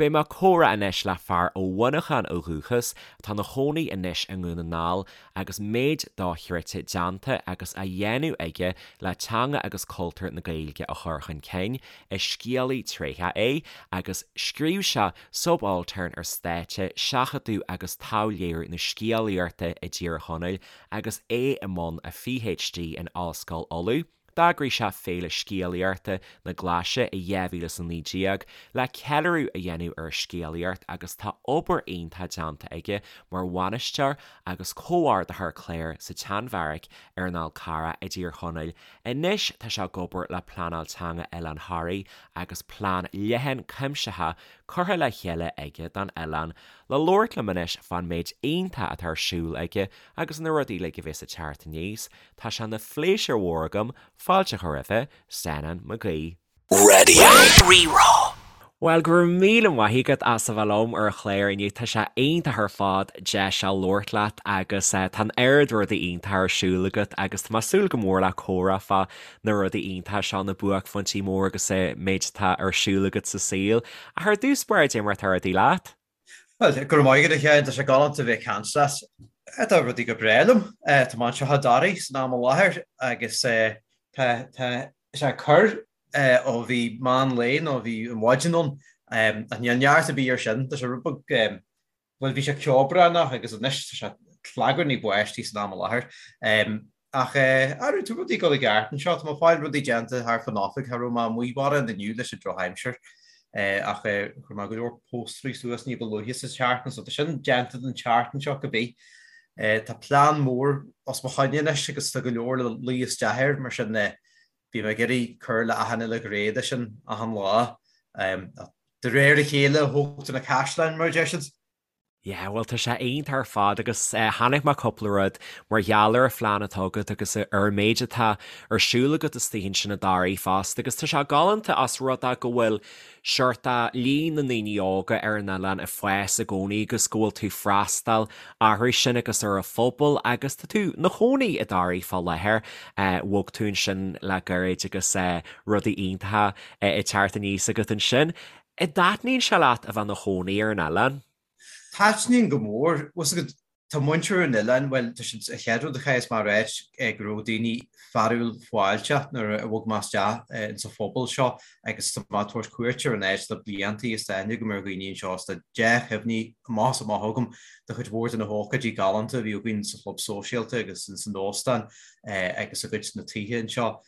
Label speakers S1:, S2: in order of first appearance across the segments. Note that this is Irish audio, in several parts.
S1: Beidh mé ag comhrá anois le fear ó Mhuineachán ó dhúchas, atá ina chónaí anois i nDún na nGall agus méid dochreidte déanta agus á dhéanamh aige le teanga agus cultúr na Gaeilge a chur chun cinn. Is scéalaí tréitheach é agus scríobh sé Subaltern ar Stáitse, Seachadadh agus Taibhléiriú na Scéalaíochta i dTír Chonaill agus é i mbun a PhD in Ollscoil Uladh. D'eagraigh sé Féile Scéalaíochta na Glaise i 2019 le ceiliúradh a dhéanamh ar an scéalaíocht agus tá obair iontach déanta aige mar bhainisteoir agus comhordaitheoir cláir sa tSeanbheairic ar an Fhál Carrach i dTír Chonaill. Anois tá sé ag obair le Pleanáil Teanga Oileán Thoraí agus plean leathan cuimsitheach curtha le chéile aige don oileán. Le labhairt liom anois fán méid iontach atá ar siúl aige agus na rudaí uilig a bheas ag teacht aníos, Tá sé ina phléisiúr mhór agam fáilte a chur roimhe, Senan Mac Aoidh.
S2: Radio Rí-Rá.
S1: Bhuel, go raibh míle maith agat as a bheith liom ar an chlár inniu. Tá sé iontach ar fad deis a labhairt leat agus tá an oiread rudaí iontacha ar siúl agat agus tá mé ag súil go mór le comhrá fá na rudaí iontacha seo, na buaicphointí móra agus an méid atá ar siúl agat sa saol. Ach ar dtús báire, cad é mar atá rudaí leat?
S3: Bhuel, go raibh maith agat a Sheáin, tá sé galánta a bheith ag caint leat. Tá rudaí go breá liom. Tá mé anseo i dToraigh san am i láthair agus tá sé ag cur ó bhí meán lae nó bhí an mhaidin ann ach níl neart ar bith air sin. Tá sé rud beag, bhuel bhí sé ceobhránach agus anois tá sé clagarnaigh báistí san am i láthair. Ach arú, tá rudaí ag dul i gceart anseo. Tá mé ag fáil rudaí déanta thart fán oifig. Cha raibh mé amuigh mórán inniu leis an drochaimsir. Ach chuir mé go leor póstairí suas ní ba luaithe sa tseachtain, so tá sin déanta don tseachtain seo cibé. Tá plean mór os mo choinne anois agus tá go leor le luí isteach air, mar sin bím ag iarraidh cur le achan uile ghné de sin achan lá. De réir a chéile a thógtar na caisleáin, mar a deir siad.
S1: Yeah, bhuel tá sé iontach ar fad agus chonaic mé cúpla rud mar gheall ar an phlean atá agat agus ar an méid atá ar siúl agat istigh ansin i dToraigh fosta agus tá sé galánta as rud é go bhfuil seort líon na ndaoine óga ar an oileán ag fás i gcónaí agus go bhfuil tú ag freastal orthu sin agus ar an phobal agus tá tú 'na chónaí i dToraigh fá láthair, bhog tú ansin le gairid agus rudaí iontacha ag teacht aníos agat ansin. An dtaitníonn sé leat a bheith 'na chónaí ar an oileán?
S3: Taitníonn go mór. Bhfuil 's agat, tá muintir an oileáin, bhuel, tá siad, an chéad rud a chaithfeas mé a ráit, go raibh daoine fearúil fáilteach nuair a bhog mé isteach ins an phobal seo agus tá mé ag tabhairt cuairt ar an áit le blianta is tá aithne agam ar dhaoine anseo is tá dea-chuimhní amach is amach agam de chuid mhór de na hócáidí galánta a bhí againn sa chlub sóisialta agus ins an óstán agus i gcuid de na tithe anseo.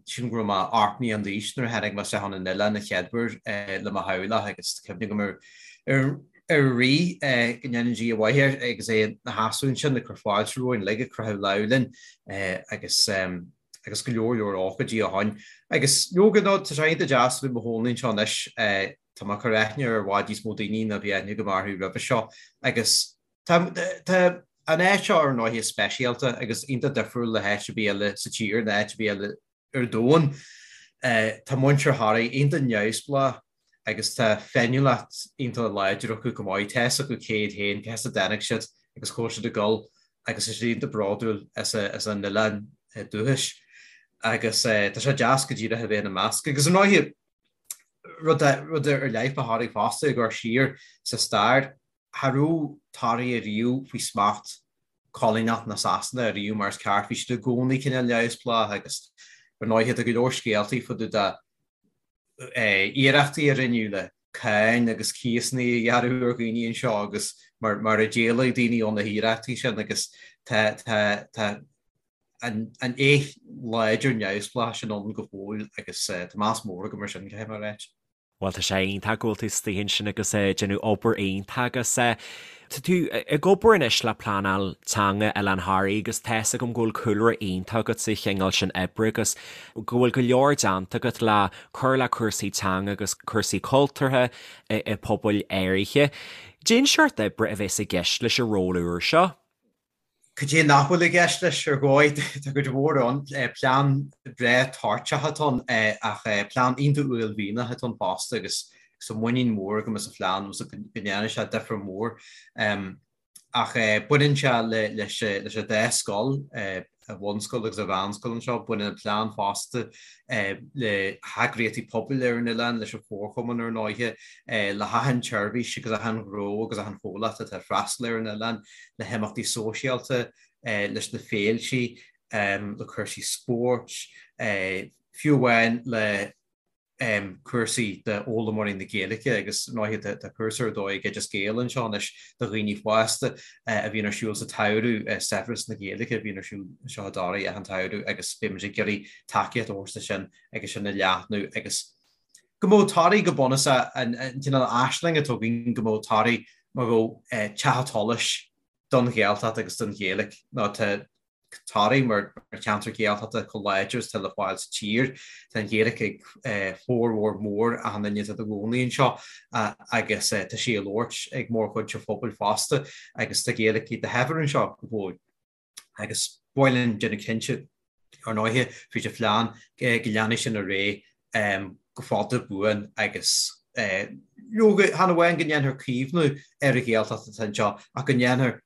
S3: Sílim go raibh mé 8 mbliana d'aois nuair a tháinig mé isteach chun an oileáin an chéad uair le mo theaghlach agus tá cuimhne agam ar ar an Rí, go ndéana Dia mhaith air, agus é ina sheasamh ansin ag cur fáilte romhainn uilig, ag croitheadh lámh linn agus agus go leor leor ócáidí ó shoin. Agus leoga nó tá sé iontach deas a bheith i mo chónaí anseo anois, tá mé ag cur aithne ar i bhfad níos mó daoine ná bhí aithne agam orthu roimhe seo agus Tá an áit seo ar ndóighe speisialta agus iontach difriúil le háit ar bith eile sa tír nó áit ar bith eile ar domhan. Tá muintir Thoraí iontach neamhspleách agus tá féiniúlacht iontach láidir acu go maith. Tá fhios acu cé hiad féin, cá as a dtáinig siad agus cá bhfuil siad ag dul agus tá siad iontach bródúil as a n-oileán dúchais agus tá sé deas go díreach a bheith ina measc. Agus ar ndóighe, rud ar leith fá Thoraigh fosta, ag amharc siar sa stair, Cha raibh Toraigh ariamh faoi smacht coilíneach na Sasana ariamh mar is ceart. Bhí siad i gcónaí cineál neamhspleách agus ar ndóighe tá go leor scéaltaí fá dtaobh de iarrachtaí a rinneadh le cáin agus cíosanna a ghearradh ar dhaoine anseo agus mar mar a d'éalaigh daoine ó na hiarrachtaí sin agus tá tá tá an an fhéith láidir neamhspleách sin ann go fóill agus tá meas mór agam ar sin, caithfidh mé a ráit.
S1: Bhuel, tá sé iontach go bhfuil tú istigh ansin agus ag déanamh obair iontach agus tá tú ag obair anois le pleanáil teanga Oileán Thoraí agus tá fhios agam go bhfuil cúlra iontach agat sa chineál sin oibre agus go bhfuil go leor déanta agat le cur le cúrsaí teanga agus cúrsaí cultúrtha i pobail áirithe. Cén seort oibre a bheas i gceist leis an ról úr seo?
S3: Cad é nach bhfuil i gceist leis ar dhóigh? Tá cuid mhór ann. Plean breá toirteach atá ann ach plean iontach uaillmhianach atá ann fosta agus tá muinín mhór agam as an phlean agus go ndéanfaidh sé difear mór. Ach baineann sé leis an dá scoil, an bhunscoil agus an mheánscoil anseo. Baineann an plean fosta le heagraíochtaí pobail ar an oileán, leis an chomharchumann ar ndóighe, le hachan tseirbhís agus achan ghnó agus achan chomhlacht atá ag freastal ar an oileán, le himeachtaí sóisialta, leis na féiltí, le cúrsaí spóirt, fiú amháin le cúrsaí d'fhoghlaimeoirí na Gaeilge agus ar ndóighe tá cúrsa ar dóigh ag Oideas Gael anseo anois do dhaoine fásta a bhíonn ar siúl sa tsamhradh, Saibhreas na Gaeilge a bhíonn ar siúl anseo i dToraigh achan tsamhradh agus beidh muid ag iarraidh tacaíocht a thabhairt do sin agus sin a leathnú agus go mbeadh Toraigh go bunúsach an cineál aisling atá againn go mbeadh Toraigh mar bheadh teach an tsolais don Ghaeltacht agus don Ghaeilge nó tá Toraigh mar cheantar Gaeltachta chomh láidir is atá le fáil sa tír. Tá an Ghaeilge ag formhór mór achan duine atá ina gcónaí anseo agus tá sí á labhairt ag mórchuid an phobail fosta agus tá Gaeilge ag do shaibhir anseo go fóill. Agus ba mhaith linn déanamh cinnte, ar ndóighe, fríd an phlean go leanfaidh sin ar aghaidh go fada buan agus leoga, chan amháin go ndéanfar caomhnú ar an Ghaeltacht atá anseo ach go ndéanfar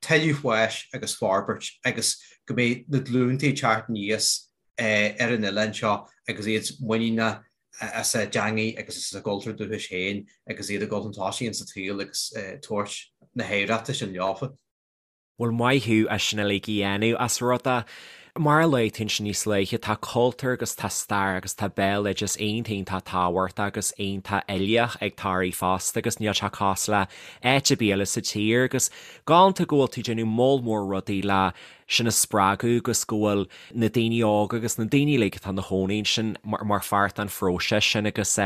S3: tuilleadh fáis agus forbairt agus go mbeidh na glúnta ag teacht aníos ar an oileán seo agus iad muiníneach as a dteangaidh agus as a gcultúr dúchais féin agus iad ag dul chun tosaigh insa tsaol agus tabhairt na hoidhreachta sin leofa.
S1: Bhuel maith thú as sin uilig a dhéanamh, as rud é, mar a luaigh tú ansin níos luaithe, tá cultúr agus tá stair agus tá béaloideas iontach iontach tábhachtach agus iontach uilíoch ag Toraigh fosta agus níl sé cosúil le áit ar bith eile sa tír agus galánta go bhfuil tú ag déanamh moll mór rudaí le sin a spreagadh agus go bhfuil na daoine óga agus na daoine uilig atá ina chónaí ansin mar pháirt den phróiseas sin agus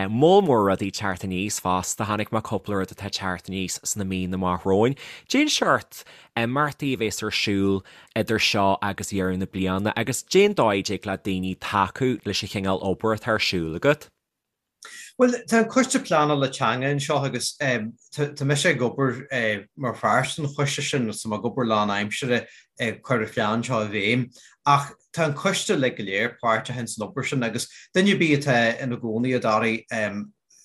S1: moll mór rudaí ag teacht aníos fosta. Chonaic mé cúpla rud atá ag teacht aníos sna míonna amach romhainn. Cén seort imeachtaí a bhéas ar siúl idir seo agus deireadh na bliana agus cén dóigh a dtig le daoine tacú leis an chineál obair atá ar siúl agat?
S3: Bhuel, tá an Coiste Pleanála Teanga anseo agus tá mise ag obair mar pháirt den choiste sin, tá mé ag obair lánaimseartha ag cur an phlean seo i bhfeidhm. Ach tá an coiste uilig go léir páirteach ins an obair sin agus duine ar bith atá ina gcónaí i dToraigh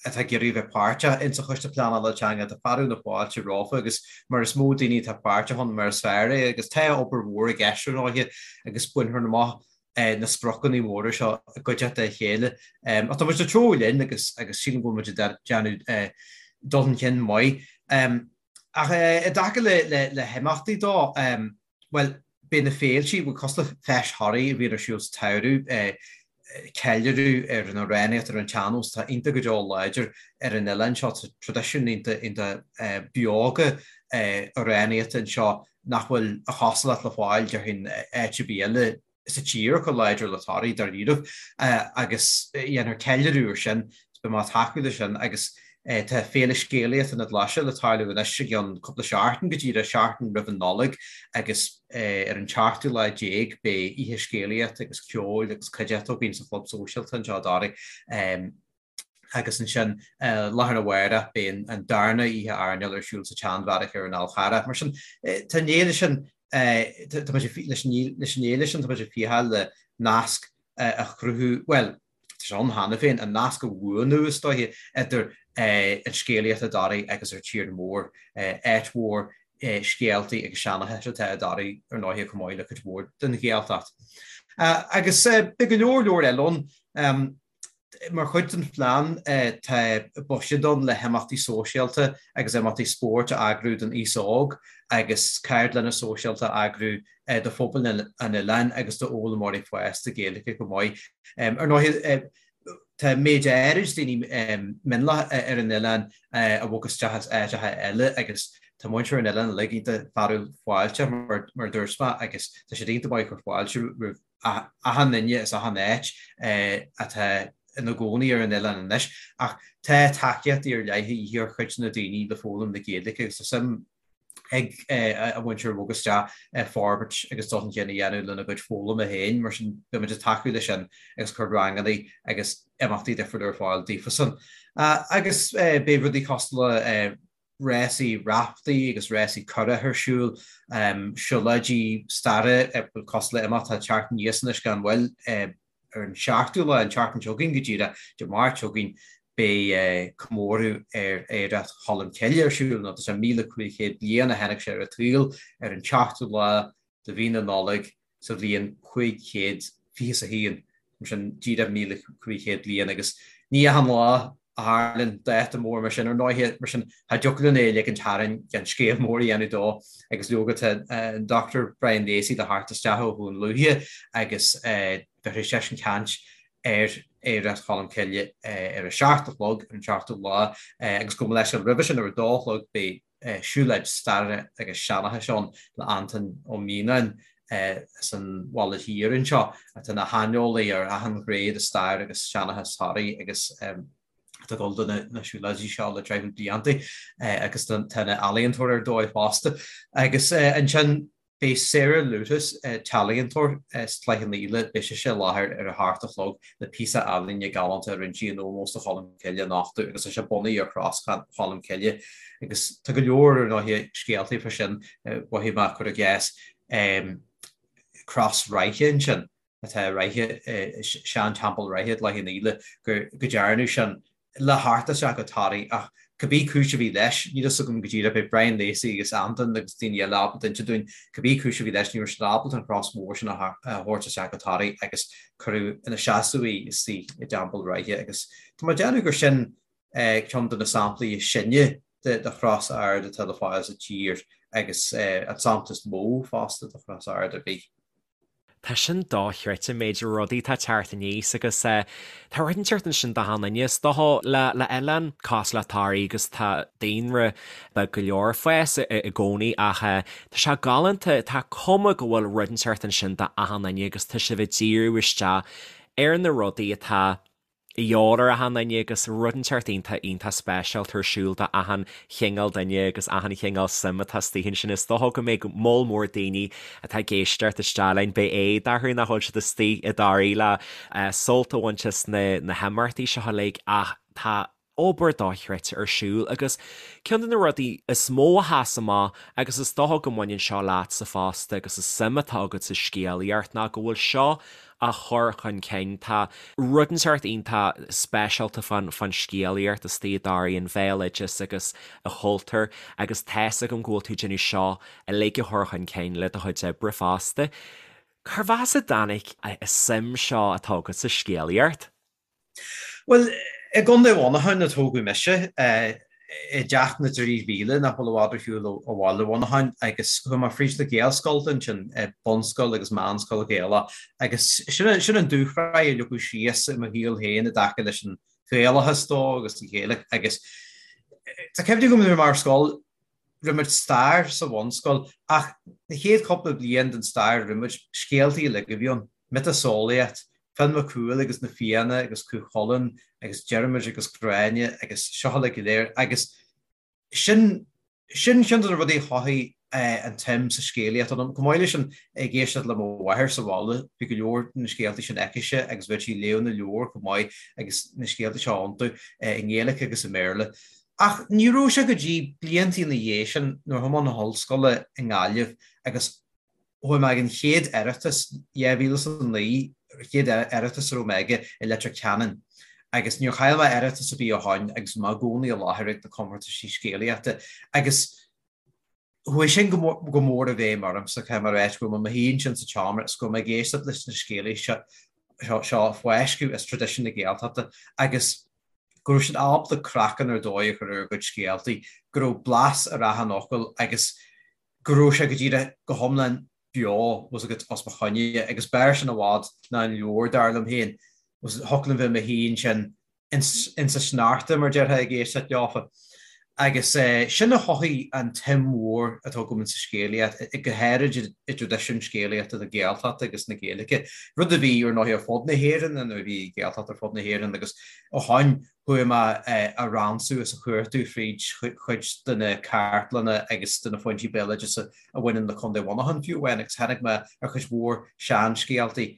S3: atá ag iarraidh a bheith páirteach ins an Choiste Pleanála Teanga, tá fearadh na fáilte rompu agus mar is mó daoine atá páirteach ann mar is fearr é agus tá obair mhór i gceist ar ndóighe agus bainfear amach na spriocanna móra seo i gcuideachta a chéile. Ach tá muid ag treabhadh linn agus agus sílim go bhfuil muid ag déanamh dul chun cinn maith. Ach i dtaca le le le himeachtaí dó, bhuel, beidh na féiltí, bhuel, cosúil le Feis Thoraí a bhíonn ar siúl sa tsamhradh, ceiliúradh ar an amhránaíocht, ar an tsean-nós atá iontach go deo láidir ar an oileán seo. Tá traidisiún iontach iontach beoga amhránaíochta anseo nach bhfuil a chosúlacht le fáil, déarfainn, áit ar bith eile sa tír chomh láidir le Toraigh, dáiríribh, agus dhéanfar ceiliúradh ar sin, beidh mé ag tacú leis sin agus tá Féile Scéalaíochta na Glaise le tarlú anois i gceann cúpla seachtain, go díreach seachtain roimh an Nollaig agus ar an tseachtú lá déag beidh oíche scéalaíochta agus ceoil agus cuideachta againn sa Chlub Sóisialta anseo i dToraigh. Agus ansin lá arna mhárach beidh an darna oíche airneáil ar siúl sa tSeanbheairic ar an Fhál Charrach. Mar sin, tá an fhéile sin, tá muid leis an fhéile sin, tá muid ag fiacháil le nasc a chruthú, bhuel, tá sé ann cheana féin, an nasc a bhuanú, is dóiche, idir an scéalaíocht i dToraigh agus ar tír mór, áit mhór scéaltaí agus seanchais atá i dToraigh ar ndóighe chomh maith le cuid mhór den Ghaeltacht. Agus beidh go leor leor eile ann. Mar chuid den phlean tá buiséad ann le himeachtaí sóisialta agus imeachtaí spóirt a eagrú don aos óg agus ceardlanna sóisialta a eagrú do phobal an oileáin agus d'fhoghlaimeoirí fásta Gaeilge chomh maith. Ar ndóigh, tá méid áirid daoine mionlach ar an oileán a bhog isteach as áiteacha eile agus tá muintir an oileáin uilig iontach fearúil fáilteach mar a dúirt mé agus tá siad iontach maith ag cur fáilte roimh achan duine as achan áit atá ina gcónaí ar an oileán anois, ach tá tacaíochtaí ar leith a dhíth ar chuid de na daoine le foghlaim na Gaeilge agus tá suim ag an mhuintir a bhog isteach forbairt agus dul chun cinn a dhéanamh lena gcuid foghlama féin, mar sin beidh muid ag tacú leis sin agus cur ranganna agus imeachtaí difriúla ar fáil daofasan. Agus beidh rudaí cosúil le rásaí raftaí agus rásaí curach ar siúl, siúlóidí staire cosúil le imeacht atá ag teacht aníos anois gan mhoill ar an seachtú lá, an tseachtain seo chugainn go díreach, Dé Máirt seo chugainn. Beidh comóradh ar oidhreacht Cholm Cille ar siúl, nó tá sé 1,500 bliain ó tháinig sé ar an tsaol, ar an tseachtú lá de mhí na Nollag sa bhliain 521, mar sin díreach 1,500 bliain, agus ní achan lá a tharlaíonn dáta mór mar sin, ar ndóighe, mar sin cha dtiocfadh linn é a ligint tharainn gan scéal mór a dhéanamh dó, agus leoga tá an Dr Brian Lacey le theacht isteach ó Dhún Lúiche agus bheifear seisean caint ar Oidhreacht Cholm Cille ar a seacht a chlog ar an seachtú lá agus gabh mo leithscéal roimhe sin ar a dó a chlog beidh siúlóid staire agus seanchais ann le Antain Ó Mianáin as an Bhaile Thiar anseo atá ina shaineolaí ar achan ghné de stair agus seanchas Thoraí agus atá ag dul do na siúlóidí seo le deich blianta agus tá ina ealaíontóir ar dóigh fosta. Agus ansin Beidh Sarah Lewtas, t-ealaíontóir as Cloich Cheann Fhaola, beidh sise i láthair ar a hocht a chlog le píosa ealaíne galánta a rinne sí in ómós do Cholm Cille a nochtadh agus tá sé bunaithe ar Chros Cholm Cille agus tá go leor ar ndóighe scéaltaí fá sin, mhothaigh mé cuir i gcás Cros Ráithe ansin. atá i Ráithe, sean-teampall Ráithe i gCloich Cheann Fhaola, go dtearnadh sin le theacht isteach go Toraigh ach cibé cúis a bhí leis, níl fhios agam go díreach, beidh Brian Lacey agus Antain agus daoine eile ábalta inse dúinn cibé cúis a bhí leis, ní raibh siad ábalta an chros mhór sin a thabhairt isteach go Toraigh agus cuireadh ina seasamh í istigh i dTeampall Ráithe agus tá mé ag déanamh gur sin ceann de na samplaí is sine de chros ard atá le fáil sa tír agus an sampla is mó fosta de chros ard ar bith.
S1: Tá sin dochreidte, an méid rudaí atá ag teacht aníos agus tá rud inteacht ansin d'achan duine. Is dócha le le oileán cosúil le Toraigh agus tá daonra beag go leor ag fás i gcónaí ach tá sé galánta, tá cuma go bhfuil rud inteacht ansin d'achan duine agus tá sibh ag díriú isteach ar na rudaí atá a dhíobháil ar achan duine agus rud inteacht iontach iontach speisialta ar siúl do achan chineál duine agus achan chineál suim atá istigh ansin. Is dócha go mbeidh moll mór daoine atá ag éisteacht isteach linn, beidh éad orthu nach bhfuil siad istigh i dToraigh le sult a bhaint as na na himeachtaí seo uilig ach tá obair dochreidte ar siúl agus ceann de na rudaí is mó a sheas amach agus is dócha go mbaineann seo leatsa fosta agus an suim atá agat sa scéalaíocht ná go bhfuil seo á chur chun cinn. Tá rud inteacht iontach speisialta fán fán scéalaíocht istigh i dToraigh, an bhéaloideas agus an chultúr agus tá's agam go bhfuil tú ag déanamh seo uilig a chur chun cinn le do chuid oibre fosta. Cérbh as a dtáinig an suim seo atá agat sa scéalaíocht?
S3: Bhuel, i gContae Mhuineacháin a tógadh mise, i dTeach na dTrí Mhíle, nach bhfuil i bhfad ar shiúl ó bhaile Mhuineacháin, agus chuaigh mé fríd na Gaelscoileanna ansin, bunscoil agus meánscoil Ghaelach, agus sin sin an dúshraith a leagadh síos i mo shaol féin i dtaca leis an Ghaelachas dó agus an Ghaeilge agus tá cuimhne agam nuair a bhí mé ar scoil, Rinne muid stair sa bhunscoil ach na chéad chúpla bliain den stair a rinne muid, scéaltaí uilig a bhí ann, miotaseolaíocht, Fionn Mac Cumhaill agus na Fianna agus Cú Chulainn agus Diarmuid agus Gráinne agus seo uilig go léir agus sin, sin ceann de na rudaí a chothaigh an tsuim sa scéalaíocht ionam. Chomh maith leis sin, ag éisteacht le mo mháthair sa bhaile, bhí go leor de na scéaltaí sin aicise agus bheadh sí ag léamh na leabhar chomh maith agus na scéaltaí seo iontu i nGaeilge agus i mBéarla. Ach ní raibh sé go dtí blianta ina dhiaidh sin nuair a chuaigh mé chun na hollscoile i nGaillimh agus chuaigh mé ag an chéad Oireachtas, 2009, chéad Oireachtas a raibh mé aige i Leitir Ceanainn agus níor chaill mé Oireachtas ar bith ó shoin agus bhí mé i gcónaí i láthair ag na comórtaisí scéalaíochta agus Chuaigh sin go mór i bhfeidhm ormsa, caithfidh mé a ráit, go raibh mé i mo shuí ansin sa tseomra is go raibh mé ag éisteacht leis na scéalaithe seo ag fáisceadh as traidisiún na Gaeltachta agus go raibh siad ábalta craiceann ar dóigh a chur ar a gcuid scéaltaí, go raibh blas ar achan fhocal agus go raibh sé go díreach go hiomlán beo, bhfuil a fhios agat, os mo choinne agus b'fhearr sin i bhfad ná an leabhar, dar liom féin. Thiocfadh liom bheith i mo shuí ansin insa sneachta, mar déarfá, ag éisteacht leofa. Agus sin a chothaigh an tsuim mhór atá agam insa scéalaíocht, go háirid i dtraidisiún scéalaíochta na Gaeltachta agus na Gaeilge, rud a bhí, ar ndóigh, ar fud na hÉireann, nuair a bhí Gaeltacht ar fud na hÉireann agus ó shoin chuaigh mé a ransú is a chuartú fríd chuid de na cartlanna agus de na foinsí béaloideasa a bhaineann le Contae Mhuineacháin fiú amháin agus tháinig mé ar chuid mhór seanscéaltaí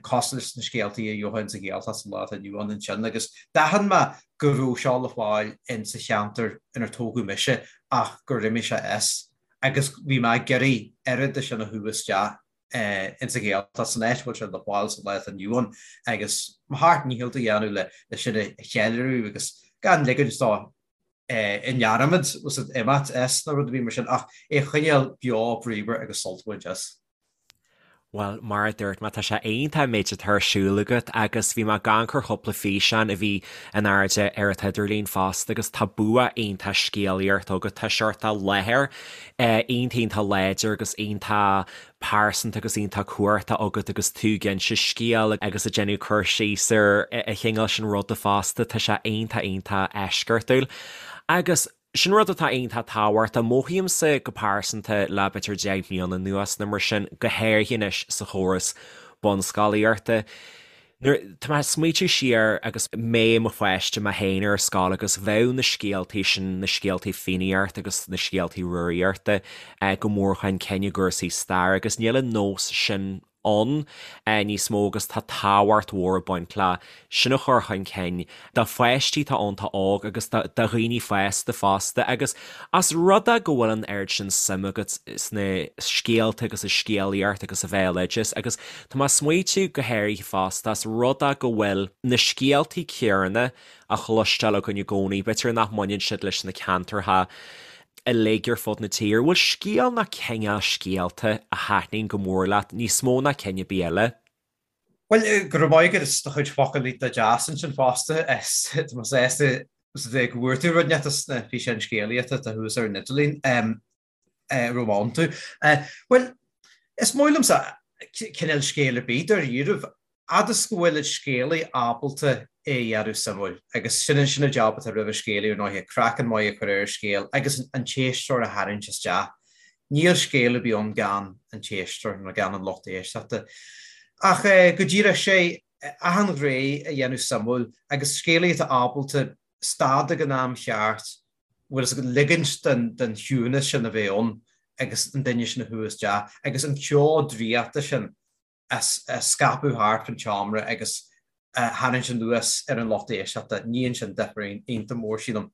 S3: cosúil leis na scéaltaí a gheofá insa Ghaeltacht sa lá atá inniu ann ansin agus d'aithin mé go raibh seo le fáil insa cheantar inar tógadh mise ach gur imigh sé as agus bhí mé ag iarraidh oiread de sin a shú isteach. Insa Ghaeltacht, san áit a bhfuil sé le fáil sa lá atá inniu ann agus mo sheacht ndícheall a dhéanamh le sin a cheiliúradh agus gan ligint dó i ndearmad imeacht as nó rud ar bith mar sin ach é a choinneáil beo bríomhar agus sultmhar deas.
S1: Bhuel, mar a dúirt mé, tá sé iontach an méid atá ar siúl agat agus bhí mé ag amharc ar chúpla físeán a bhí in airde ar an t-idirlíon fosta agus tá bua iontach scéalaíochta agat, tá seort láthair iontach iontach láidir agus iontach pearsanta agus iontach cumhachtach agat agus tú ag inse scéil agus ag déanamh cur síos ar an chineál sin ruda fosta, tá sé iontach iontach eisceachtúil. Agus sin rud atá iontach tábhachtach, mothaímse go pearsanta le b'fhéidir 10 mbliana anuas nó mar sin, go háirithe anois sa chóras bunscolaíochta, Nuair, tá mé ag smaoitiú siar agus mé i mo pháiste mé féin ar scoil agus bheadh na scéaltaí sin, na scéaltaí Fiannaíochta agus na scéaltaí Rúraíochta go mór chun cinn i gcúrsaí staire agus níl an nós sin ann níos mó agus tá tábhacht mhór ag baint le sin a chur chun cinn do pháistí atá iontach óg agus do dhaoine fásta fosta agus as rud é go bhfuil an oiread sin suim agat sna scéalta agus sa scéalaíocht agus sa bhéaloideas agus tá mé ag smaoitiú go háirithe fosta as rud é go bhfuil na scéaltaí céanna á chloisteáil againn i gcónaí, b'fhéidir nach mbaineann siad leis na ceantartha uilig ar fud na tíre. Bhfuil scéal ná cineál scéalta a thaitníonn go mór leat níos mó ná cinn ar bith eile?
S3: Bhuel, go raibh maith agat as do chuid focal iontach deas ansin fosta. Tá mé sásta go bhfuair tú rud inteacht as na físeáin scéalaíochta atá thuas ar an idirlíon a raibh iontu. Bhuel, is maith liomsa cineál scéal ar bith dáiríribh, fhad is go bhfuil an scéalaí ábalta é a dhéanamh suimiúil, agus sin sin an jab atá roimh an scéalaí ar ndóighe, craiceann maith a chur ar an scéal agus an t-éisteoir a tharraingt isteach. Níl scéal ar bith ann gan an t-éisteoir nó gan an lucht éisteachta. Ach go díreach, sé achan ghné a dhéanamh suimiúil agus scéalaí atá ábalta stad ag an am cheart, bhfuil fhios agat, ligint don chiúnas sin a bheith ann agus an duine sin a shú isteach agus an ceo draíochta sin a scaipeadh thart an tseomra agus a tharraingt anuas ar an lucht éisteachta, níonn sin difear iontach mór, sílim.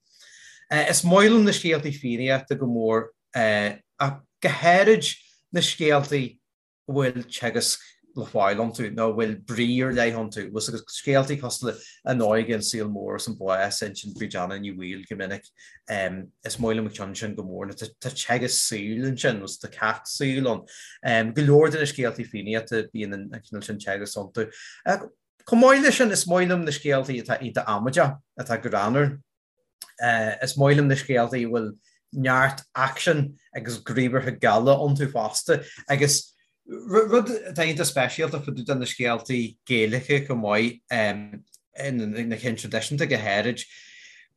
S3: Is maith liom na scéaltaí Fiannaíochta go mór, ach go háirid na scéaltaí a bhfuil teagasc le fáil iontu nó a bhfuil brí ar leith iontu. Bhfuil fhios agat, scéaltaí cosúil le An Óige, An Saol Mór agus An Bás a insíonn Bríd Anna Ní Bhaoill go minic. Is maith liom an ceann sin go mór. Tá teagasc saoil ansin, nó tá ceacht saoil ann. Go leor de na scéaltaí Fiannaíochta bíonn an cineál sin teagasc iontu. Chomh maith leis sin, is maith liom na scéaltaí atá iontach amaideach, atá greannmhar. Is maith liom na scéaltaí a bhfuil neart aicsin agus gníomhartha geala iontu fosta. Agus rud atá iontach speisialta fá dtaobh de na scéaltaí Gaelacha chomh maith, na cinn traidisiúnta go háirid,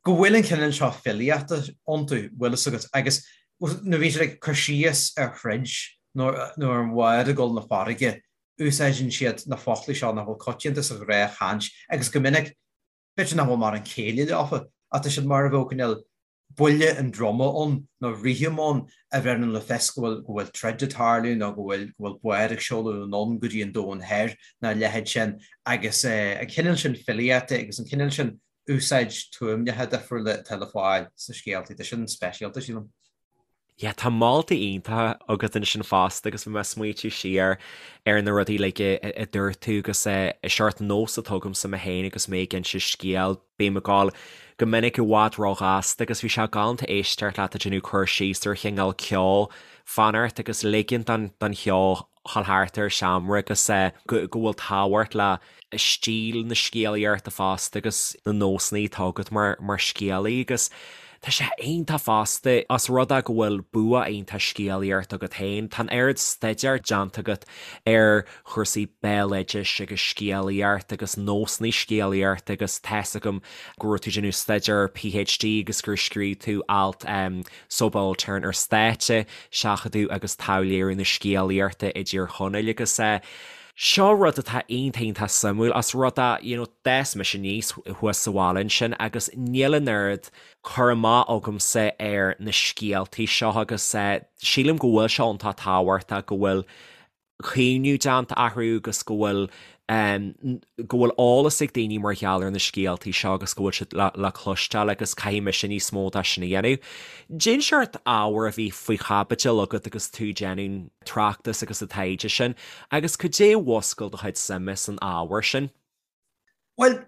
S3: go bhfuil an cineál seo filíochta iontu, bhfuil fhios agat, agus nuair a bhíonn siad ag cur síos ar throid nó ar an bhád ag dul na farraige, úsáideann siad na foclaí seo nach bhfuil coitianta sa ghnáthchaint agus go minic, b'fhéidir nach bhfuil mórán céille leofa, ach tá siad mar a bheadh cineál buille an druma ann nó rithim ann a bheireann le fios go bhfuil go bhfuil troid ag tarlú nó go bhfuil go bhfuil bád ag seoladh anonn go dtí an domhan thoir nó a leithéid sin agus an cineál sin filíochta agus an cineál sin úsáid tuaimneacha difriúla atá le fáil sna scéaltaí, tá sin speisialta, sílim.
S1: Yeah, tá moltaí iontacha agat ansin fosta agus bhí mé ag smaoitiú siar ar na rudaí uilig a dúirt tú agus seort nós atá agamsa mé féin agus mé ag inse scéal, bím ag gabháil go minic i bhfad róghasta agus bhí sé galánta éisteacht leat ag déanamh cur síos ar chineál ceo fanacht agus ligint don cheo dhul thart ar an seomra agus go bhfuil tábhacht le stíl na scéalaíochta fosta agus na nósanna atá agat mar scéalaí agus tá sé iontach fosta os rud é go bhfuil bua iontach scéalaíochta agat féin, tá an oiread staidéir déanta agat ar chúrsaí béaloidis agus scéalaíocht agus nósanna scéalaíochta agus tá's agam go raibh tú ag déanamh staidéar PhD agus gur scríobh tú alt subaltern ar stáitse, seachadadh agus taibhléiriú na scéalaíochta i dTír Chonaill agus seo rud atá iontach iontach suimiúil os rud é you know d'fhás mise aníos thuas sa bhaile ansin agus níl an oiread cur amach agamsa ar na scéaltaí seo agus sílim go bhfuil sé iontach tábhachtach go bhfuil caomhnú déanta orthu agus go bhfuil. Go bhfuil eolas ag daoine mar gheall ar na scéaltaí seo agus go bhfuil siad le cloisteáil agus caithfidh mise níos mó de sin a dhéanamh. Cén seort ábhar a bhí faoi chaibidil agat agus tú ag déanamh tráchtas agus an taighde sin agus cad é a mhúscail do chuid suime san ábhar sin?
S3: Bhuel,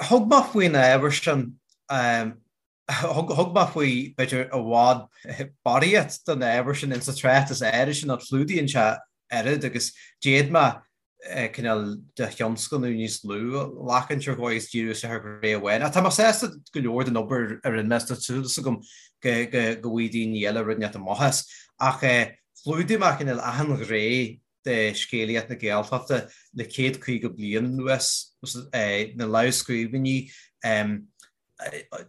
S3: thug mé faoin ábhar sin Thug mé faoi, b'fhéidir, i bhfad barraíocht den ábhar sin insa tráchtas áirid sin, ach clúdaíonn sé oiread agus d'fhéad mé cineál de thionscnamh níos lú a ghlacaint ar dhóigh is díriú isteach ar ghné amháin. Ach tá mé sásta go leor den obair a rinne mé is tá súil agam go bhfaighidh daoine eile rud inteacht amach as. Ach chlúdaigh mé cineál achan ghné de scéalaíocht na Gaeltachta le 150 bliain anuas, na lámhscríbhinní,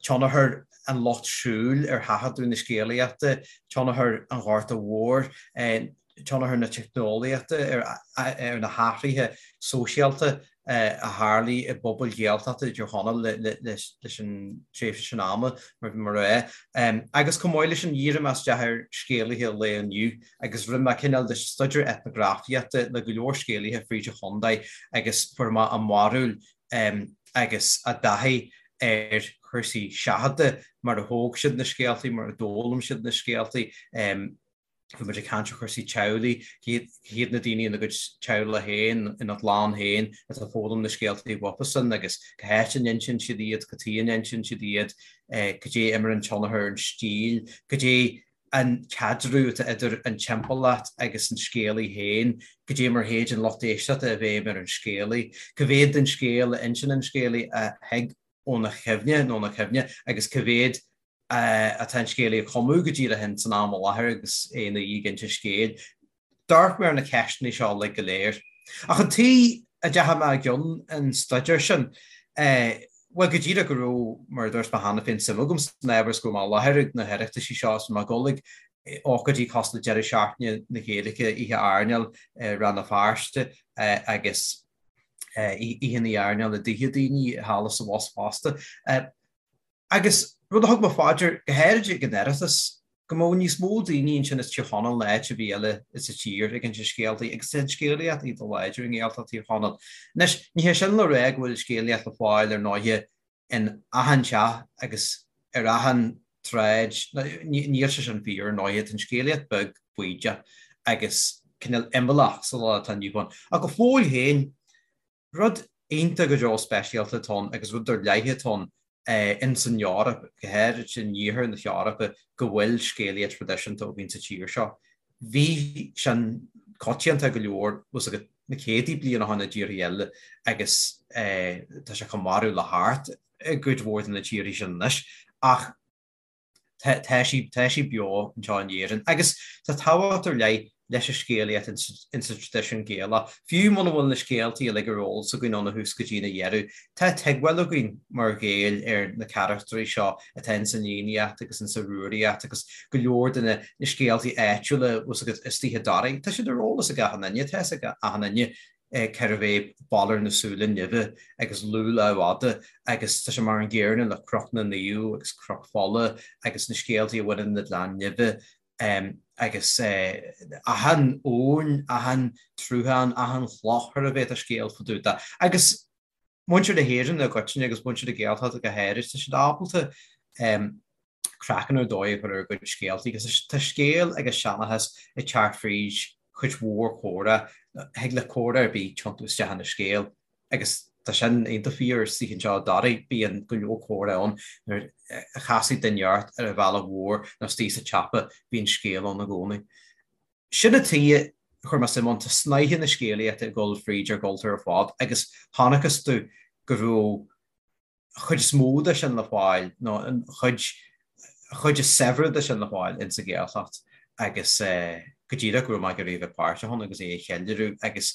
S3: tionchar an lucht siúil ar thaifeadadh na scéalaíochta, tionchar an Ghorta Mhóir, tionchar na teicneolaíochta ar na hathruithe sóisialta a tharlaigh i bpobail Ghaeltachta i dTír Chonaill leis an tréimhse sin ama, mar bhí mé a rá. Agus chomh maith leis sin, dhírigh mé isteach ar scéalaithe an lae inniu agus rinne mé cineál de staidéar eitneagrafaíochta le go leor scéalaithe fríd an chontae agus fuair mé a mbarúil agus a dtaithí ar chúrsaí seachadta, mar a thóg siad na scéaltaí, mar a d'fhoghlaim siad na scéaltaí. Bhí muid ag caint ar chúrsaí teaghlaigh, cé hiad na daoine ina gcuid teaghlach féin, ina gclann féin atá ag foghlaim na scéaltaí uafasan agus cá háit a n-insíonn siad iad, cad chuige a n-insíonn siad iad, cad é a imríonn tionchar ar an stíl, cad é an caidreamh atá idir an timpeallacht agus an scéalaí féin, cad é mar a théid an lucht éisteachta i bhfeidhm ar an scéalaí, cá mhéad den scéal a insíonn an scéalaí a thig óna chuimhne nó óna cuimhne agus cá mhéad atá an scéalaí a chumadh go díreach in san am i láthair agus é ina dhiaidh ag inse scéil. D'amharc mé ar na ceisteanna seo uilig go léir. Ach an tuige a dteachaigh mé i gcionn an staidéir sin, bhuel, go díreach go raibh, mar a dúirt mé cheana féin, suim agam san ábhar is go raibh mé i láthair ag na hOireachtaisí seo is mé ag dul ag ócáidí cosúil le Deireadh Seachtaine na Gaeilge, Oíche Airneáil i Rann na Feirste agus Oícheanna Airneáil i dtithe daoine thall is abhus fosta. Agus rud a thug mé fá dear, go háirid ag an Oireachtas, go mbeadh níos mó daoine ansin as Tír Chonaill ná áit ar bith eile sa tír ag inse scéaltaí, agus tá an scéalaíocht iontach láidir i nGaeltacht Thír Chonaill. Anois, ní hé sin le rá go bhfuil scéalaíocht le fáil ar ndóighe in achan teach agus ar achan tsráid, níl sé sin fíor ar ndóighe, tá an scéalaíocht beag baoideach agus cineál imeallach sa lá atá inniu ann. Ach go fóill féin, Rud iontach go deo speisialta atá ann agus rud ar leith atá ann ins an Eoraip, go háirid in iarthar na hEorpa, go bhfuil scéalaíocht thraidisiúnta againn sa tír seo. Bhí sin coitianta go leor bhfuil 's agat na céadtaí bliain ó shin i dtíortha eile agus tá sé chomh marbh le hArt i gcuid mhór de na tíortha sin anois ach Tá sí, tá sí beo anseo in Éirinn agus tá tábhacht ar leith leis an scéalaíocht insa traidisiún Gaelach. Fiú muna bhfuil na scéaltaí uilig ar eolas againn óna thús go dtína dheireadh, tá tuigbheáil againn mar Ghaeil ar na carachtraí seo atá insan Fhiannaíocht agus insa Rúraíocht agus go leor de na scéaltaí áitiúla, bhfuil 's agat, istigh i dToraigh. Tá siad ar eolas ag achan duine, tá 'fhios ag achan duine cérbh é Balor na Súile Nimhe agus Lugh Lámhfhada agus tá sé mar an gcéanna le Cnoc na Naomh agus Cnoc Fola agus na scéaltaí a bhaineann le Gleann Nimhe agus achan abhainn, achan tsruthán, achan chloch ar a bheith tá scéal fá dtaobh de. Agus muintir na hÉireann i gcoitinne agus muintir na Gaeltachta go háirid, tá siad ábalta craiceann ar dóigh a chur ar a gcuid scéaltaí agus tá scéal agus seanchas ag teacht fríd chuid mhór comhrá, thig le comhrá ar bith tiontú isteach ina scéal agus tá sin iontach fíor istigh anseo i dToraigh, bíonn go leor comhrá ann nuair a chasfaidh duine ort ar an bhealach mhór nó istigh sa tsiopa, bíonn scéal ann i gcónaí. Sin an tuige a chuir mé suim ann, tá snáithe na scéalaíochta ag dul fríd ár gcultúr ar fad agus chonacthas domh go raibh chuid is mó de sin le fáil, nó an chuid, chuid is saibhre de sin le fáil ins an Ghaeltacht agus go díreach go raibh mé ag iarraidh a bheith páirteach ann agus é a cheiliúradh agus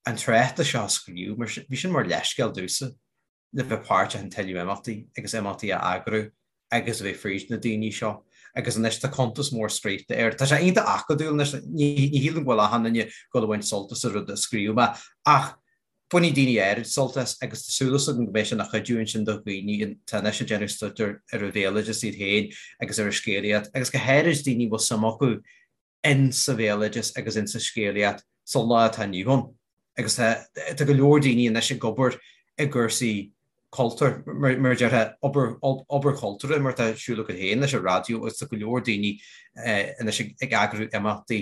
S3: an tráchtas seo a scríobh, mar bhí sin mar leithscéal domhsa le bheith páirteach in tuilleadh imeachtaí agus imeachtaí a eagrú agus a bheith fríd na daoine seo agus anois tá cuntas mór scríofa air. Tá sé iontach acadúil anois, ní shílim go bhfuil achan duine ag dul a bhaint sult as an rud a scríobh mé ach Bainfidh daoine áirid sult as agus tá súil agam go mbeidh sé ina chuidiú ansin do dhaoine atá anois ag déanamh staidéir ar an bhéaloideas iad féin agus ar an scéalaíocht agus go háirid daoine a bhfuil suim acu in sa bhéaloideas agus in sa scéalaíocht sa lá atá inniu ann. Agus tá go leor daoine anois ag obair i gcúrsaí cultúir, mar a déarfá, obair chultúrtha mar atá ar siúl agat féin leis an raidió agus tá go leor daoine anois ag eagrú imeachtaí,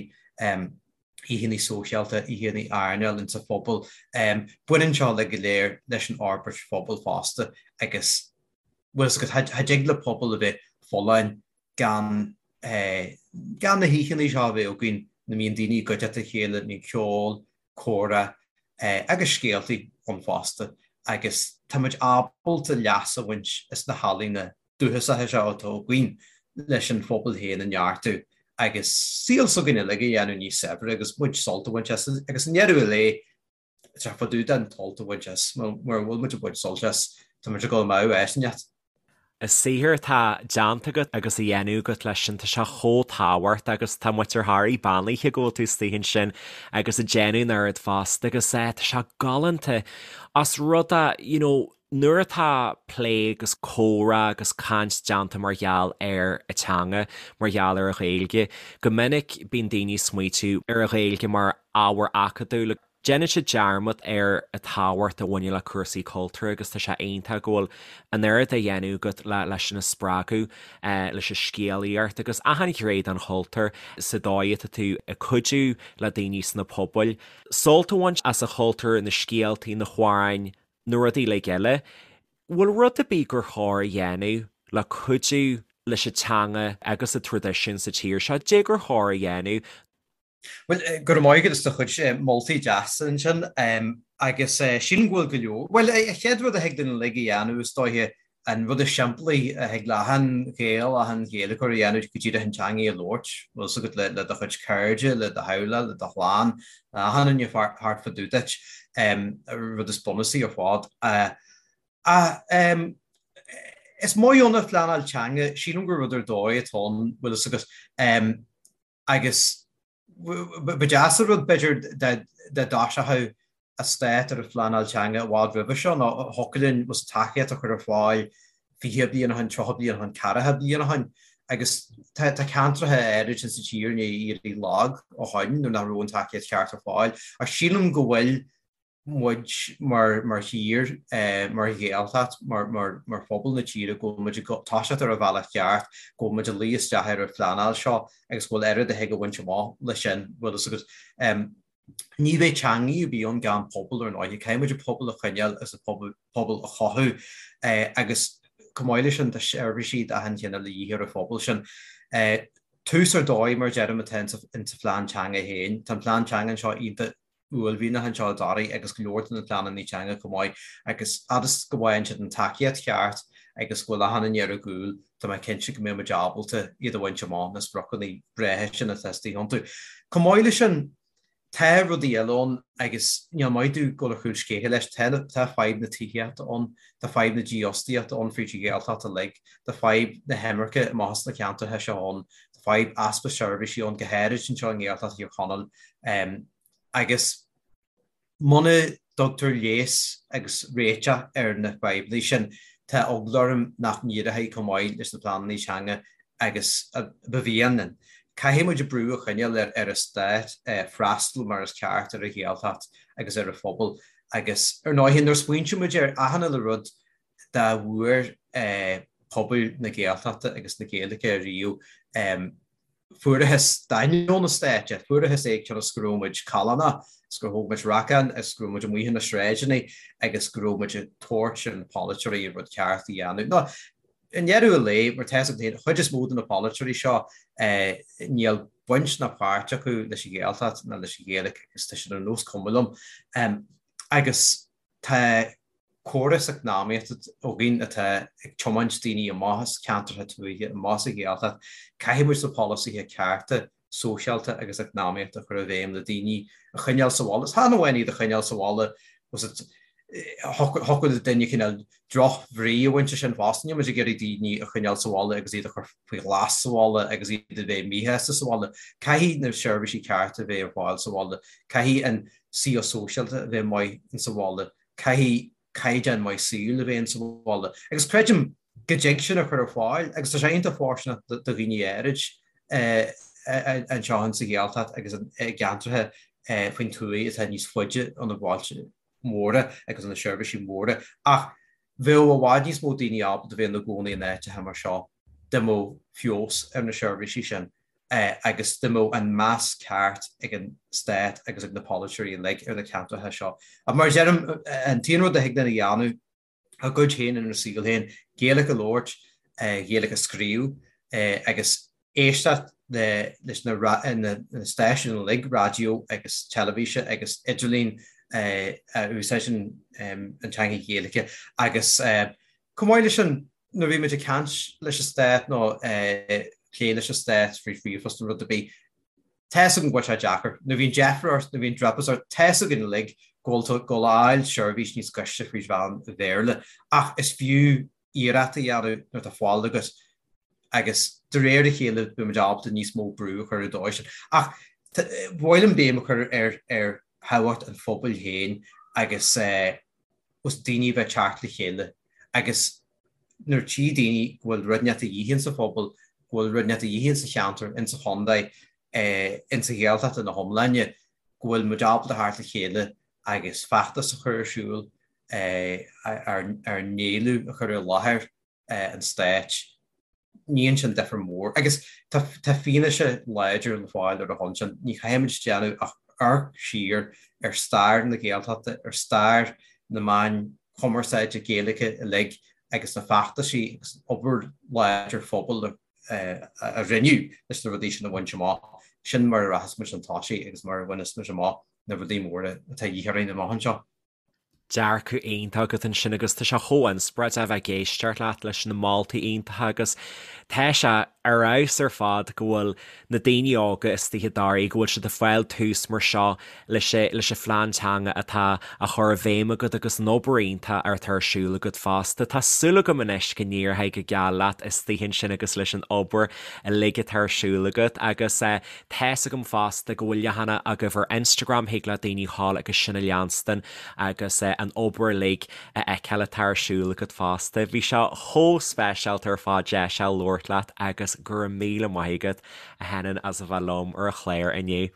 S3: oícheanna sóisialta, oícheanna airneáil insa phobal. Baineann seo uilig go léir leis an fhorbairt phobail fosta agus bhfuil fhios agat, cha dtig le pobal a bheith folláin gan gan na hoícheanna seo a bheith againn ina mbíonn daoine i gcuideachta a chéile, mbíonn ceol, comhrá agus scéaltaí ann fosta agus tá muid ábalta leas a bhaint as na healaíona dúchasacha seo atá againn leis an phobal féin a neartú agus saol s'againn uilig a dhéanamh níos saibhre agus muid sult a bhaint as agus i ndeireadh an lae tá fá dtaobh den tsult a bhaint as, mura bhfuil muid ag baint sult as, tá muid ag dul amú áit inteacht.
S1: An saothar atá déanta agat agus á dhéanamh agat leis sin, tá sé chomh tábhachtach agus tá muid ar Thoraí beannaithe go bhfuil tú istigh ansin agus ag déanamh an oiread fosta agus eh tá sé galánta as rud a, you know, nuair atá plé agus comhrá agus caint déanta mar gheall ar an teanga, mar gheall ar an Ghaeilge, go minic bíonn daoine ag smaoitiú ar an Ghaeilge mar ábhar acadúil. Déanann siad dearmad ar an tábhacht a bhaineann le cúrsaí cultúir agus tá sé iontach go bhfuil an oiread á dhéanamh agat leis sin a spreagadh, leis an scéalaíocht agus achan ghné den chultúr sa dóigh atá tú ag cuidiú le daoine sna pobail sult a bhaint as an chultúr, na scéaltaí, na hamhráin, na rudaí uilig eile. Bhfuil rud ar bith gur chóir a dhéanamh le cuidiú leis an teanga agus an traidisiún sa tír seo? Cad é gur chóir a dhéanamh?
S3: Bhuel, go raibh maith agat as do chuid moltaí deasa ansin agus sílim go bhfuil go leor. Bhuel, an chéad rud a thig linn uilig a dhéanamh is dóiche an rud is simplí a thig le achan Ghael, achan Ghaeilgeoir a dhéanamh go díreach an teangaidh a labhairt, bhfuil 's agat, le do chuid cairde, le do theaghlach, le do chlann, le achan duine thart fá dtaobh duit, an rud is bunúsaí ar fad. Ach is maith ann an phleanáil teanga, sílim gur rud ar dóigh atá ann, bhfuil 's agat, Agus ba deas an rud, b'fhéidir, dá dtoiseochadh an stát ar an phleanáil teanga i bhfad roimhe seo, nó thiocfadh linn tacaíocht a chur ar fáil 20 bliain ó shin, 30 bliain ó shin, 40 bliain ó shin. Agus tá ceantracha áirid insa tír i ndiaidh éirí lag ó shoin nuair nach raibh an tacaíocht cheart ar fáil. Ach sílim go bhfuil muid mar thír, mar Ghaeltacht, mar phobal na tíre, go bhfuil muid ag toiseacht ar an bhealach ceart, go bhfuil muid ag luí isteach ar an phleanáil seo agus go bhfuil oiread a thig a bhaint amach leis sin, bhfuil fhios agat. Ní bheidh teangaidh ar bith ann gan pobal ar ndóighe. Caithfidh muid an pobal a choinneáil agus an pobal a chothú agus chomh maith leis sin tá seirbhísí d'achan chineál de dhíth ar an phobal sin. Tús ar dóigh, mar a deirim, atá insa phlean teanga féin. Tá an plean teanga anseo iontach uaillmhianach anseo i dToraigh agus go leor de na pleananna teanga chomh maith agus fhad is go bhfaigheann siad an tacaíocht cheart agus go bhfuil achan duine ar a gcúl, tá mé cinnte go mbeidh muid ábalta iad a bhaint amach, na spriocanna breátha sin atá istigh iontu. Chomh maith leis sin, tá rudaí eile ann agus níl maith domh dul ar chúl scéithe leis, tá tá fadhb na tithíochta ann, tá fadhb na dífhostaíochta ann fríd an Ghaeltacht uilig, tá fadhb na himirce amach as na ceantracha seo ann, tá fadhb easpa seirbhísí ann, go háirid anseo i nGaeltacht Thír Chonaill. Agus muna dtugtar leigheas agus réiteach ar na fadhbanna sin, tá eagla orm nach n-éireoidh chomh maith leis na pleananna teanga agus a ba mhian linn. Caithfidh muid brú a choinneáil ar an stát freastal mar is ceart ar an Ghaeltacht agus ar an phobal agus, ar ndóigh, nuair a smaointíonn muid ar achan uile rud dá bhfuair pobal na Gaeltachta agus na Gaeilge ariamh, Fuarathas d'ainneoin an stáit é, fuarathas é cionn is go raibh muid callánach, is gur thóg muid racán, is go raibh muid amuigh ar na sráideanna agus go raibh muid ag tabhairt ar na polaiteoirí an rud ceart a dhéanamh. Nó, i ndeireadh an lae, mar tá a fhios agat féin, an chuid is mó de na polaiteoirí seo, níl baint ná páirt acu leis an Ghaeltacht ná leis an Ghaeilge agus tá siad ar nós cuma liom. Agus tá córas eacnamaíochta againn atá ag tiomáint daoine amach as ceantracha tuaithe, amach as an Ghaeltacht. Caithfidh muid na polasaithe cearta sóisialta agus eacnamaíochta a chur i bhfeidhm le daoine a choinneáil sa bhaile. Is chan amháin iad a choinneáil sa bhaile, thiocfadh le duine cineál drochbhrí a bhaint as sin fosta. Níl muid ag iarraidh daoine a choinneáil sa bhaile agus iad a chur faoi ghlas sa bhaile agus iad a bheith míshásta sa bhaile. Caithfidh na seirbhísí cearta a bheith ar fáil sa bhaile. Caithfidh an saol sóisialta a bheith maith insa bhaile. Caithfidh caighdeán maith saoil a bheith insa bhaile. Agus creidim go dtig sin a chur ar fáil agus tá sé iontach fóirsteanach do dhaoine áirid anseo insa Ghaeltacht agus i gceantracha faoin tuath atá níos faide ó na bailte móra agus ó na seirbhísí móra. Ach bheadh i bhfad níos mó daoine ábalta bheith ina gcónaí in áiteacha mar seo dá mbeadh feabhas ar na seirbhísí sin agus dá mbeadh an meas ceart ag an stát agus ag na polaiteoirí uilig ar na ceantracha seo. Ach mar a deirim, an t-aon rud a thig linn a dhéanamh, ár gcuid féin inár saol féin, Gaeilge a labhairt, Gaeilge a scríobh agus éisteacht leis na stáisiúin uilig, raidió agus teilifíse agus idirlíon a úsáideann an teanga Ghaeilge agus chomh maith leis sin nuair a bhí muid ag caint leis an stát nó plé leis an stát faoi ríomhphost nó rud ar bith, Tá's agam go bhfuil sé deacair. Nuair a bhíonn deifir ort, nuair a bhíonn driopás ort, tá's againn uilig go bhfuil tú ag dul a fháil seirbhís níos gaiste fríd mheán an Bhéarla. Ach is fiú iarracht a dhéanamh nuair atá fáil agat agus de réir a chéile beidh muid ábalta níos mó brú a chur ar an dóigh sin. Ach ba mhaith liom béim a chur ar ar thábhacht an phobail féin agus eh, os daoine a bheith ag teacht le chéile agus nuair a tchí daoine go bhfuil rud inteacht a dhíth insa phobal, go bhfuil rud inteacht a dhíth insa cheantar, insa chontae, insa Ghaeltacht ina hiomláine, go bhfuil muid ábalta theacht le chéile agus feachtas a chur ar siúl, ár n-éileamh a chur i láthair an stáit, níonn sin difear mór. Agus tá fianaise láidir le fáil ar a shon sin. Ní chaithfimid déanamh ach amharc siar ar stair na Gaeltachta, ar stair na meáin chumarsáide Gaeilge uilig agus na feachtaisí agus an obair láidir phobail a rinneadh leis na rudaí sin a bhaint amach. Sin mar a rachas muid chun tosaigh agus mar a bhaineas muid amach na rudaí móra atá a dhíth orainn amach anseo.
S1: Dearcadh iontach agat ansin agus tá sé chomh inspioráideach a bheith ag éisteacht leat leis na moltaí iontacha agus tá sé ar fheabhas ar fad go bhfuil na daoine óga istigh i dToraigh, go bhfuil siad ag fáil tús mar seo leis leis an phlean teanga atá á chur i bhfeidhm agat agus an obair iontach atá ar siúl agat fosta. Tá súil agam anois go n-éireoidh go geal leat istigh ansin agus leis an obair uilig atá ar siúl agat agus Tá's agam fosta go bhfuil leathanach agaibh ar Instagram, thig le daoine dhul agus sin a leanstan agus an obair uilig a fheiceáil atá ar siúl agat fosta. Bhí sé chomh speisialta ar fad deis a labhairt leat agus go raibh míle maith agat, a Shenainn, as a bheith liom ar an chlár inniu.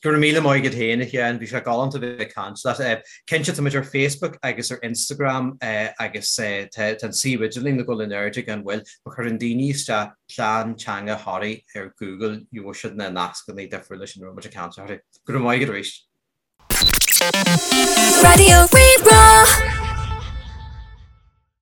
S3: Go raibh míle maith agat féin, a Sheáin. Bhí sé galánta bheith ag caint leat. Cinnte, tá muid ar Facebook agus ar Instagram agus tá an suíomh idirlín ag dul in airde gan mhoill. Má chuireann daoine isteach Plean Teanga Thoraí ar Google, gheobhaidh siad na nascanna difriúla sin a raibh muid ag caint orthu. Go raibh maith agat arís.
S2: Raidió Rí-Rá.